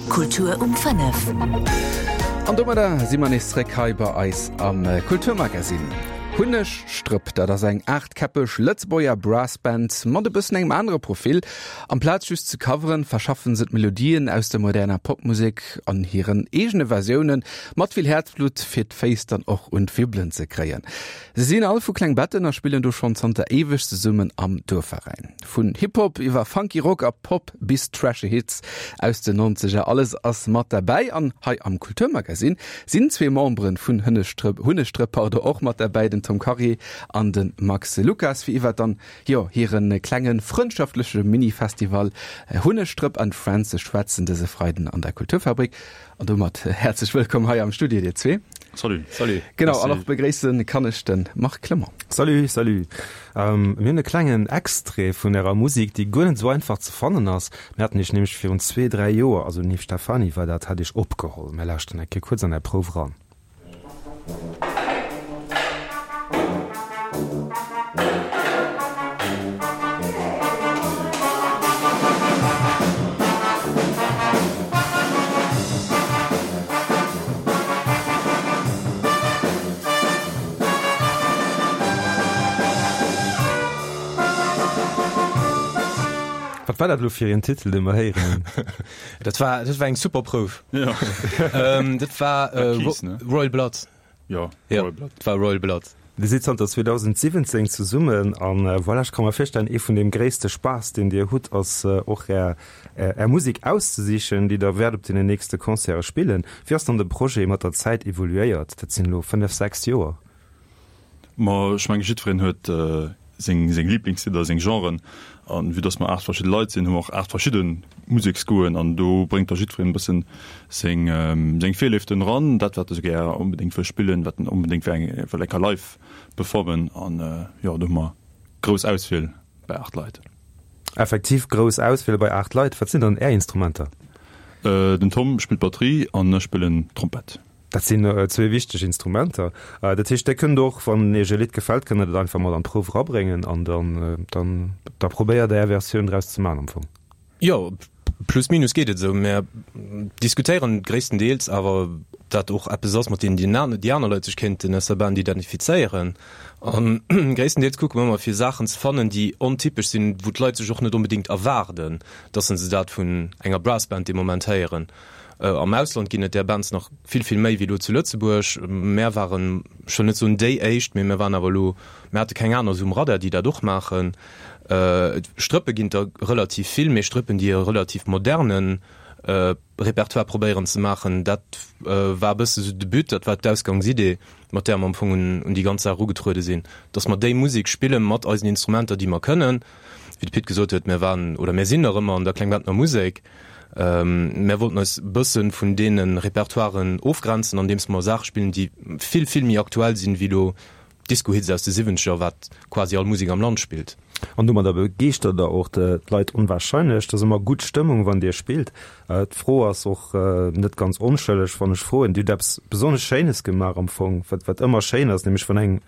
Kultur um 5. An domadder si mer nees zréck hei bei eis am Kulturmagazin. Hunnegstrëpp, dat ass eng aachtkäppeg Lëtzebuerger Brassband mat e bëssen engem anere Profil. Amplaz just ze coveren, verschaffen se d'Melodien aus der moderner Popmusek an hiren eegene Versiounen, mat vill Häerzblutt, fir d'Féiss dann och un d'Wibbelen ze kréien. Se sinn all vu Klengbetten a spillen do schonn zanter éiweg zesummen am Duerfveräin. Vun Hip-Hop iwwer funky Rock a Pop bis trashy Hits aus den Nonzeger, alles ass mat derbäi. An hei am Kulturmagazin sinn zwee Memberen vun Hënnestrëpp, Hunnestrëpp pardon, och mat derbäi, den Tom Karier an de Max Lucas, fir iwwer dann, jo, hire klenge frëndschaftleche Mini-Festival Hunnestrëpp and Friends ze schwätzen dëse Freiden an der Kulturfabrik. An domat häerzlech wëllkomm hei am Studio, dir zwee. Salut. Salut. Genau, an och begréisse kann ech de Marc Clement. Salut, salut. Mir hunn e klengen Extrait vun ärer Musek, déi guer net esou einfach ze fannen ass. Mir haten iech nämlech virun zwee, dräi Joer, also den Yves Stephany war dat, hat iech opgeholl. Mir lauschteren eng Kéier kuerz an är Prouf eran. Wat war dat elo fir een Titel, dee mer héieren hunn? Dat war, dat war eng super Prouf. Ja. ähm, dat war äh, Keys, ne? Royal Blood. Ja, ja, Royal Blood. Dat war Royal Blood. Dir sidd zanter 2017 zesummen an äh, voilà, ech ka mer virstellen, ee vun deem gréisste Spaass, deen Dir hutt, ass äh, och Är, Är Musek auszesichen, déi Der wäert op deenen nächste Concerte spillen. Wéi ass dann de Projet mat der Zäit evoluéiert? Dat sinn elo fënnef, sechs Joer. Ma ech menge jiddwereen huet seng seng Liblingslidder, seng Genren. An vue dass mer 8 verschidde Leit sinn, hu mer och 8 verschidde Museksgoûten an do bréngt da jiddwereen e bëssen seng seng Virléiften eran, dat wat e sou gär onbedéngt wëll spillen, wat en onbedéngt wëll eng wëll eng Kéier live performen. An jo, do hu mer grouss Auswiel bei 8 Leit. Effektiv grouss Auswiel bei 8 Leit. Wat sinn dann Är Instrumenter? Den Tom spillt Batterie an ech spillen Trompett. Dat sinn zwee wichteg Instrumenter. Dat heescht, Dir kënnt och, wann Iech e Lidd gefält, kënnt Der dat einfach mat an d'Prouf erabréngen an dann, dann, da probéiert Der Är Versioun draus ze maachen am Fong. Jo, plus minus geet et esou. Mär diskutéieren gréisstendeels awer, ob dat och eppes ass, mat deem déi aner Leit sech kéinten aus der Band identifizéieren. A gréisstendeels kucke mer ëmmer, fir Saachen ze fannen, déi ontypesch sinn, wou d'Leit sech och net onbedéngt erwaarden, dass se dat vun enger Brassband dee Moment héieren. Am Ausland ginn et där Bands nach vill, vill méi wéi elo zu Lëtzebuerg. Mär waren, ech wëll net soen déi éischt, mee mär waren awer elo, mär hate keng aner esou um Radar, déi dat och maachen. Strëppe ginn et der relativ vill, mee Strëppen, déi e relativ moderne Repertoire probéieren ze maachen, dat war e bësse sou de But, dat war d'Ausgangsidee, mat där mer am Fong un déi ganz Saach erugetruede sinn, dass mer déi Musek spille mat eisen Instrumenter, déi mer kënnen. Wéi de Pit gesot huet, mär waren oder mär sinn nach ëmmer an der Klengbettner Musek. Mär wollten eis e bësse vun deene Repertoiren ofgrenzen, andeems mer Saache spillen, déi vill, vill méi aktuell sinn, wéi elo Disco-Hits aus de Siwwenzeger, wat quasi all Musek am Land spillt. An domadder begeeschtert der och d'Leit onwahrscheinlech. Et ass ëmmer gutt Stëmmung, wann Dir spillt. D'Fro ass och net ganz onschëlleg, wann ech froen. Dir hutt eppes besonnesch Schéines gemaach am Fong, wat wat ëmmer schéin ass, nämlech wann eng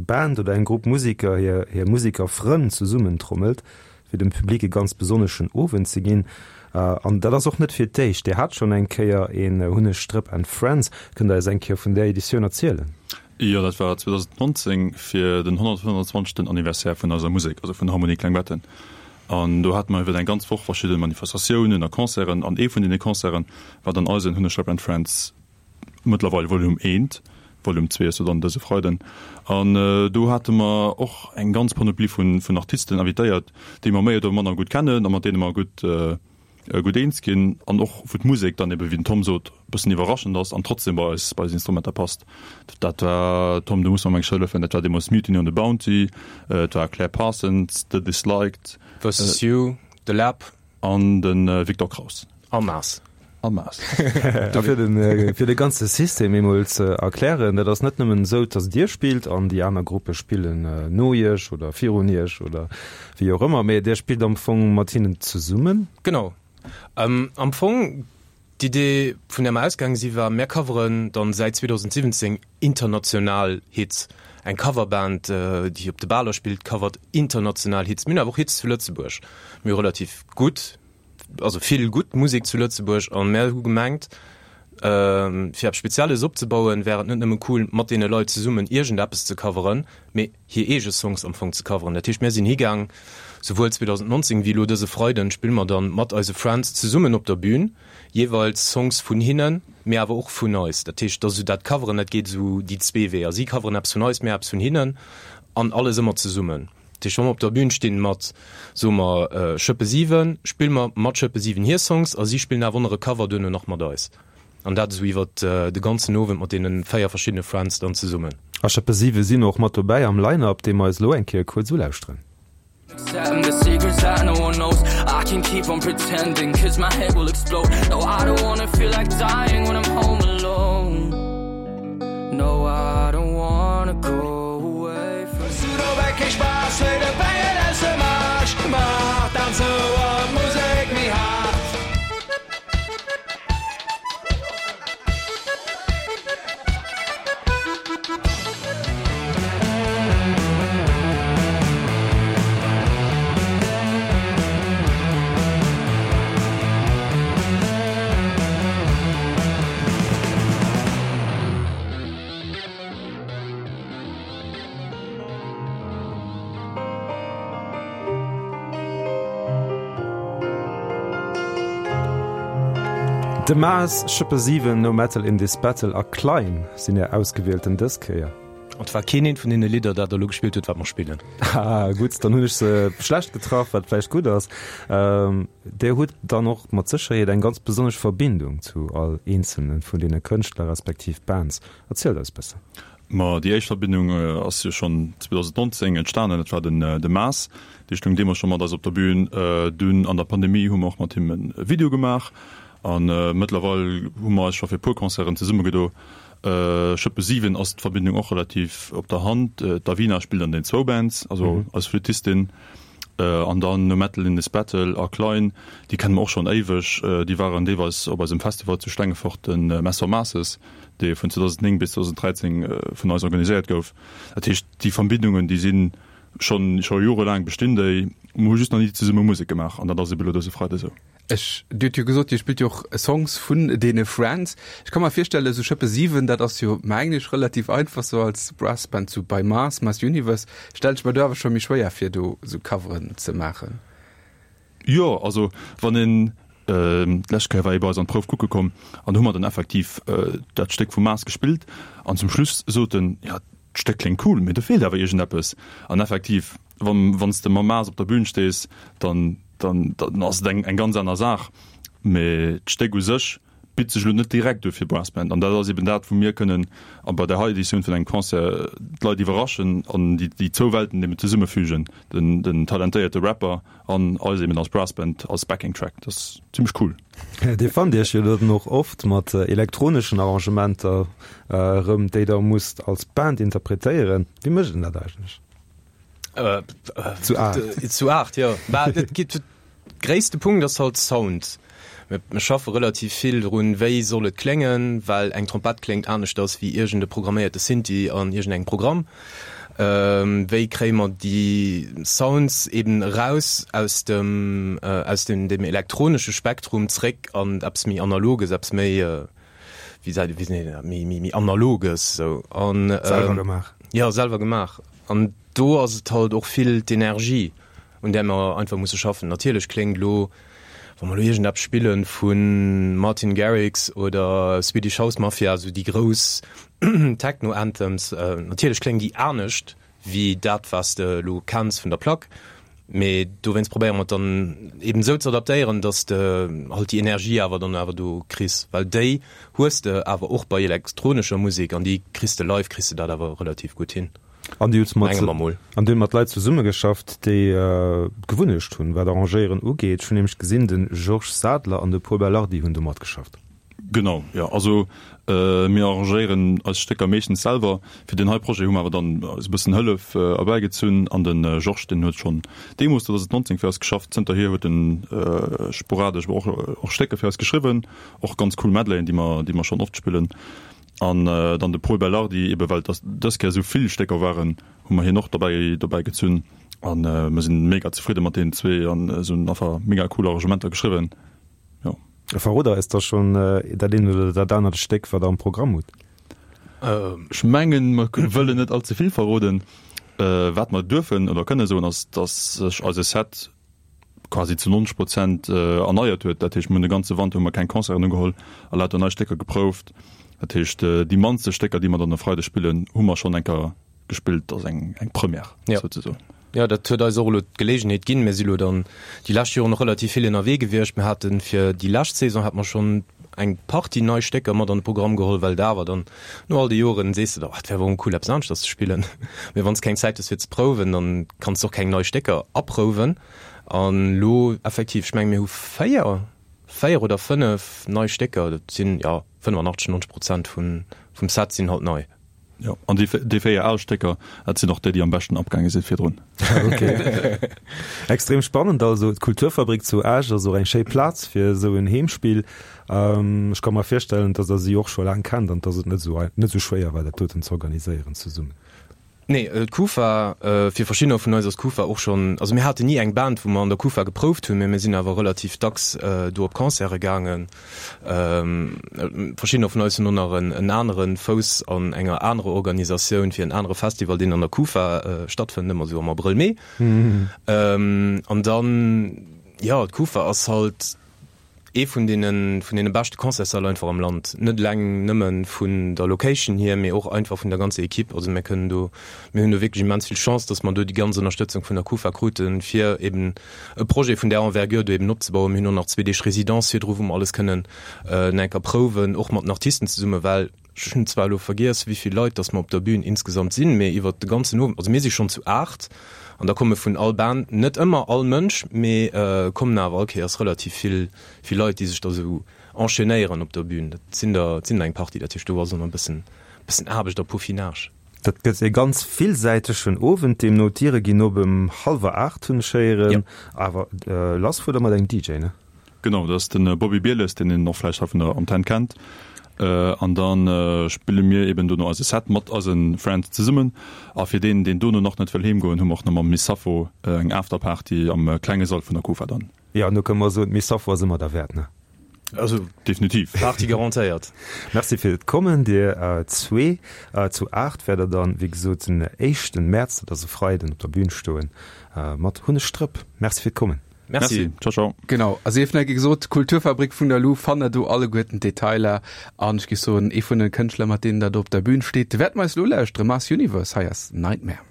Band oder eng Grupp Museker hir hir Musekerfrënn zesummentrommelt. fir dem Public e ganz besonneschen Owend ze ginn. An dat ass och net fir d'éischt. Dir hat schonn eng Kéier een Hunneg Strëpp and Friends. Kënnt Der eis eng Kéier vun där Editioun erzielen? Jo, dat war 2019 fir den 125. Anniversaire vun eiser Musek, also vun Harmonie Klengbetten. An do hate mer iwwer eng ganz Woch verschidde Manifestatiounen a Concerten. An ee vun deene Concerte war dann eisen Hunneg Strëpp and Friends Mëttlerweil Volume eent, Volume zwee ass jo dann dëse Freiden. An do hate mer och eng ganz Panoplie vun vun Artisten invitéiert, déi mer méi oder manner gutt kennen a mat deene mer gutt gutt eens ginn an och wou d'Musek dann ebe wéi den Tom sot e bëssen iwwerraschend ass an trotzdem bei eis bei eis Instrumenter passt. Dat war, Tom, du muss mer eng hëllefen, dat war deemools Mutiny on the Bounty, et war Claire Parsons, The Disliked. Versus You, The Lab. An de Victor Kraus. A Maas. A Maas. A fir den, fir de ganze System eemol ze erklären, dat ass net nëmmen esou, dass Dir spillt an déi aner Gruppe spillen no Iech oder virun Iech oder wéi och ëmmer, mä Dir spillt am Fong mat hinnen zesummen. Genau. Am Fong, d'Idee, vun där mer ausgaange si war, mär coveren dann säit 2017 international Hits. Eng Coverband, déi op de Baler spillt, covert international Hits. Mir hunn awer och Hits zu Lëtzebuerg. Mir hu relativ gutt. also vill gutt Musek zu Lëtzebuerg an mär hu gemengt, fir eppes Spezielles opzebauen, wär et net nëmme cool, mat deene Leit zesummen iergendeppes ze coveren, mee hir eege Songs am Fong ze coveren. Dat heescht, mär sinn higaang, souwuel 2019 wéi elo dëse Freiden spille mer dann mat eise Friends zesummen op der Bühn, jeeweils Songs vun hinnen, mee awer och vun eis. Dat heescht, dass esou dat Coveren, dat geet esou déi zwee Weeër. Si coveren eppes vun eis, mär eppes vun hinnen an alles ëmmer zesummen. Dat heescht, wa mer op der Bühn stinn mat, soe mer, Schëppe 7, spille mer mat Schëppe 7 hir Songs a si spillen awer och nach e Cover duerno nach mat eis. An dat esou iwwer de ganzen Owend mat deene 4 verschiddene Friends dann zesummen. A Schëppe 7 sinn och mat dobäi am Line-Up, dee mer eis elo eng Kéier kuerz ulauschteren. De Maas, Schëppe 7, No Metal in This Battle a Klein sinn är ausgewielten dës Kéier. An et war keen eent vun deene Lidder, dat der elo gespillt hutt, wat mer spillen. Haha, gutt, dann hunn ech se schlecht getraff, wat vläicht gutt ass. Dir hutt dann och mat Sécherheet eng ganz besonnesch Verbindung zu all eenzelne vun deene Kënschtler respektiv Bands. Erzielt eis bëssen. Ma déi éischt Verbindung ass jo schonn 2019 entstanen. Dat war den de Maas, dee stoung deemools scho mat eis op der Bühn. Dunn an der Pandemie hu mer och mat him e Video gemaach. A mëttlerweil hu mer eis scho fir e puer Concerten zesummegedo. Schëppe 7 ass d'Verbindung och relativ op der Hand. D'Avina spillt an den zwou Bands, also eis Flüttistin. An dann No Metal in This Battle a Klein, déi kenne mer och schonn éiweg. Déi waren deelweis op eisem Festival zu Stengefort, de Mess for Masses. dee vun 2009 bis 2013 vun eis organiséiert gouf. Dat heescht, déi Verbindungen, déi si schonn scho jorelaang bestinn déi. Mer hu just nach ni zesumme Musek gemaach an dat ass ebe lo dëse Freide esou. Ech, Dir hutt jo gesot, Dir spillt jo och Songs vun deene Friends. Ech ka mer virstellen, esou Schëppe 7, dat ass jo mengen ech relativ einfach sou als Brassband, sou bei Mars, Mars Universe stellen ech mer do awer scho méi schwéier vir, do sou Coveren ze maachen. Jo, also wann een, d'lescht Kéier war ee bei eis an d'Prouf kucke komm an do hu mer dann effektiv dat Stéck vum Mars gespillt an zum Schluss sot en, jo d'Stéck kléngt cool, mee do feelt awer iergendeppes. An effektiv, wann wann s de mam Mars op der Bühn stees, dann dann dann ass et eng eng ganz aner Saach, mee d'Stéck u sech bitt sech elo net direkt u fir Brassband. An dat ass eben dat, wou mir kënnen a bei der hei Editioun vun engem Concert d'Leit iwwerraschen an déi déi zwou Welten eben zesummefügen, den den talentéierte Rapper an eis eben als Brassband als Backing Track. Dat ass zimmlech cool. Dir fannt Iech jo dann och oft mat elektroneschen Arrangementer erëm, déi Der musst als Band interpretéieren. Wéi mécht een dat eigentlech? Zu 8. Zu 8, jo. Bah, et geet. Gréisste Punkt ass halt Sound. Mir schaffe relativ vill drun, wéi soll et kléngen, well eng Trompett kléngt aneschters wéi iergend e programméierte Synthi an iergendengem Programm. Wéi kréie mer déi Sounds eben eraus aus dem, aus dem, dem elektronesche Spektrum zréck an eppes méi Analoges, eppes méi, wéi seet, wéi seet een dat, méi, méi, méi Analoges esou. An, Selwer gemaach. Jo, selwer gemaach. An do ass et halt och vill d'Energie. un där mer einfach musse schaffen. Natierlech kléngt elo, wa mer elo iergendeppes spille vu Martin Garrix oder Swedish House Mafia, esou déi grouss Techno-Anthems, natierlech kléngen déi anescht wéi dat, wat s de elo kenns vun der Plack. Mee dowéinst probéiere mer et dann eben esou ze adaptéieren, datt s de halt déi Energie awer dann awer do kriss, well déi hues de awer och bei elektronescher Musek an déi kriss de live, kriss de dat awer relativ gutt hin. An Dir hutt mat, an Dir hutt mat Leit zesummegeschafft, déi d'Gewunnecht hunn, wat Arrangéieren ugeet. Ech hunn nämlech gesinn, de Georges Sadler an de Pol Belardi hunn do matgeschafft. Genau, jo. Also mir arrangéieren eis Stécker meeschtens selwer. Fir deen hei Projet hu mer awer dann eis e bëssen Hëllef erbäigezunn. An de Georges, deen huet schonn deemools, 2019, fir eis geschafft. Zënterhier huet en sporadesch awer och och Stécker fir eis geschriwwen. Och ganz cool Medleyen, déi mer, déi mer schonn oft spillen. An dann de Pol Belardi, ebe well et dës Kéier esou vill Stécker waren, hu mer hien och dobäi dobäi gezunn. An mir sinn mega zefridde mat deenen zwee an se hunn einfach mega cool Arrangementer geschriwwen. Jo. Verrot eis da schonn dat eent oder dat anert Stéck, wat der am Programm hutt. Ech mengen, mer wëllen net all ze vill verroden. Wat mer duerfen oder kënne soen, ass, dass sech eise Set quasi zu 90 Prozent erneiert huet. Dat heescht, mir hunn de ganze Wanter hu mer keng Concerten ugeholl a lauter nei Stécker geprouft. Dat heescht, déi mannste Stécker, déi mer dann e Freideg spillen, hu mer schonn eng Kéier gespillt. Dat ass eng eng Première souzesoen. Jo, dat huet eis och elo d'Geleegenheet ginn. Mir si lo dann déi lescht Joren och relativ vill ënnerwee gewiescht. Mir hate fir déi lescht Saison hate mer schonn eng Partie nei Stécker mat an de Programm geholl, well et awer dann no all de Joren sees de der, oh, et wär awer och cool eppes aneschters ze spillen. Mee wann s keng Zäit hues fir ze prouwen, dann kanns de och keng nei Stécker aprouwen. An elo effektiv, ech menge mir hu 4, 4 oder 5 nei Stécker, dat sinn, jo, 85, 90 Prozent vum Set sinn halt nei. Jo, an déi, déi 4 al Stécker, dat sinn och déi, déi am beschten abgaange sinn virdrun. Ok. Extrem spannend also. D'Kulturfabrik zu Esch ass och eng schéi Plaz fir esou en Heemspill. Ech ka mer virstellen, dass der si och scho laang kennt an dass et net esou, net esou schwéier war, dat doten ze organiséieren zesummen. Nee, d'Kufa, fir verschiddener vun eis ass d'Kufa och schonn, also mir haten ni eng Band, wou mer an der Kufa geprouft hunn, mä mir sinn awer relativ dacks do op Concerte gaangen. Verschiddener vun eis hunn och nach en anere Fouss an enger anerer Organisatioun fir en anere Festival, deen an der Kufa stattfënnt, ëmmer esou am Abrëll, Mee. An dann, jo, d'Kufa ass halt, Ee vun deene vun deene beschte Concertssäll einfach am Land. Net eleng nëmme vun der Location hier, mee och einfach vun der ganzer Equipe. Also mir kënnen do, mir hunn do wierklech immens vill Chance, datt mer do déi ganz Ënnerstëtzung vun der Kufa kruten, fir eben e Projet vun där Envergure do eben opzebauen. Mir hunn och nach zwee Deeg Résidence virdru, wou mer alles kënnen nach eng Kéier prouwen, och mat den Artisten zesummen, well Ech hunn zwar elo vergiess, wéi vill Leit dass mer op der Bühn insgesamt sinn, mee iwwert de ganzen Owend, also mir si schonn zu 8 an da komme vun all Band, net ëmmer all Mënsch, mee kommen awer all Kéiers relativ vill, vill Leit, déi sech da sou enchaînéieren op der Bühn. Dat sinn der, dat sinn der eng Partie. Dat heescht, do ass och nach e bëssen, bëssen Aarbecht a Peaufinage. Dat gëtt e ganz villsäitegen Owend deemno. D'Diere ginn op ëm hallwer 8, hunn ech héieren. Awer lass fuert der mat engem DJ, ne? Genau, dat ass de Bobby Bieles, deen een och vläicht hei vun der Antenn kennt. An da spille mir eben dono eise Set mat eise Friends zesummen. A fir deen, deen dono nach net wëll heem goen, hu mer och nach mam Miss Sappho eng Afterparty am klenge Sall vun der Kufa dann. Jo, an do kënne mer soen, d'Miss Sappho ass ëmmer derwäert, ne? Also definitiv. Party garantéiert. Merci fir d'Kommen, dir zwee. Zu 8 wäert der dann, wéi gesot, den éischten Mäerz, dat ass e Freiden, op der Bühn stoen mat Hunneg Strëpp. Merci fir d'Kommen. Merci. Ciao, ciao. Genau, a sief nach gesot, d'Kulturfabrik vun der Lu fannt der do alleguerten d'Detailer. An ech géif soen, ee vun de Kënschtler, mat deenen der do op der Bühn steet, wäerte mer eis elo lauschteren, Mars Universe, hei ass Nightmare.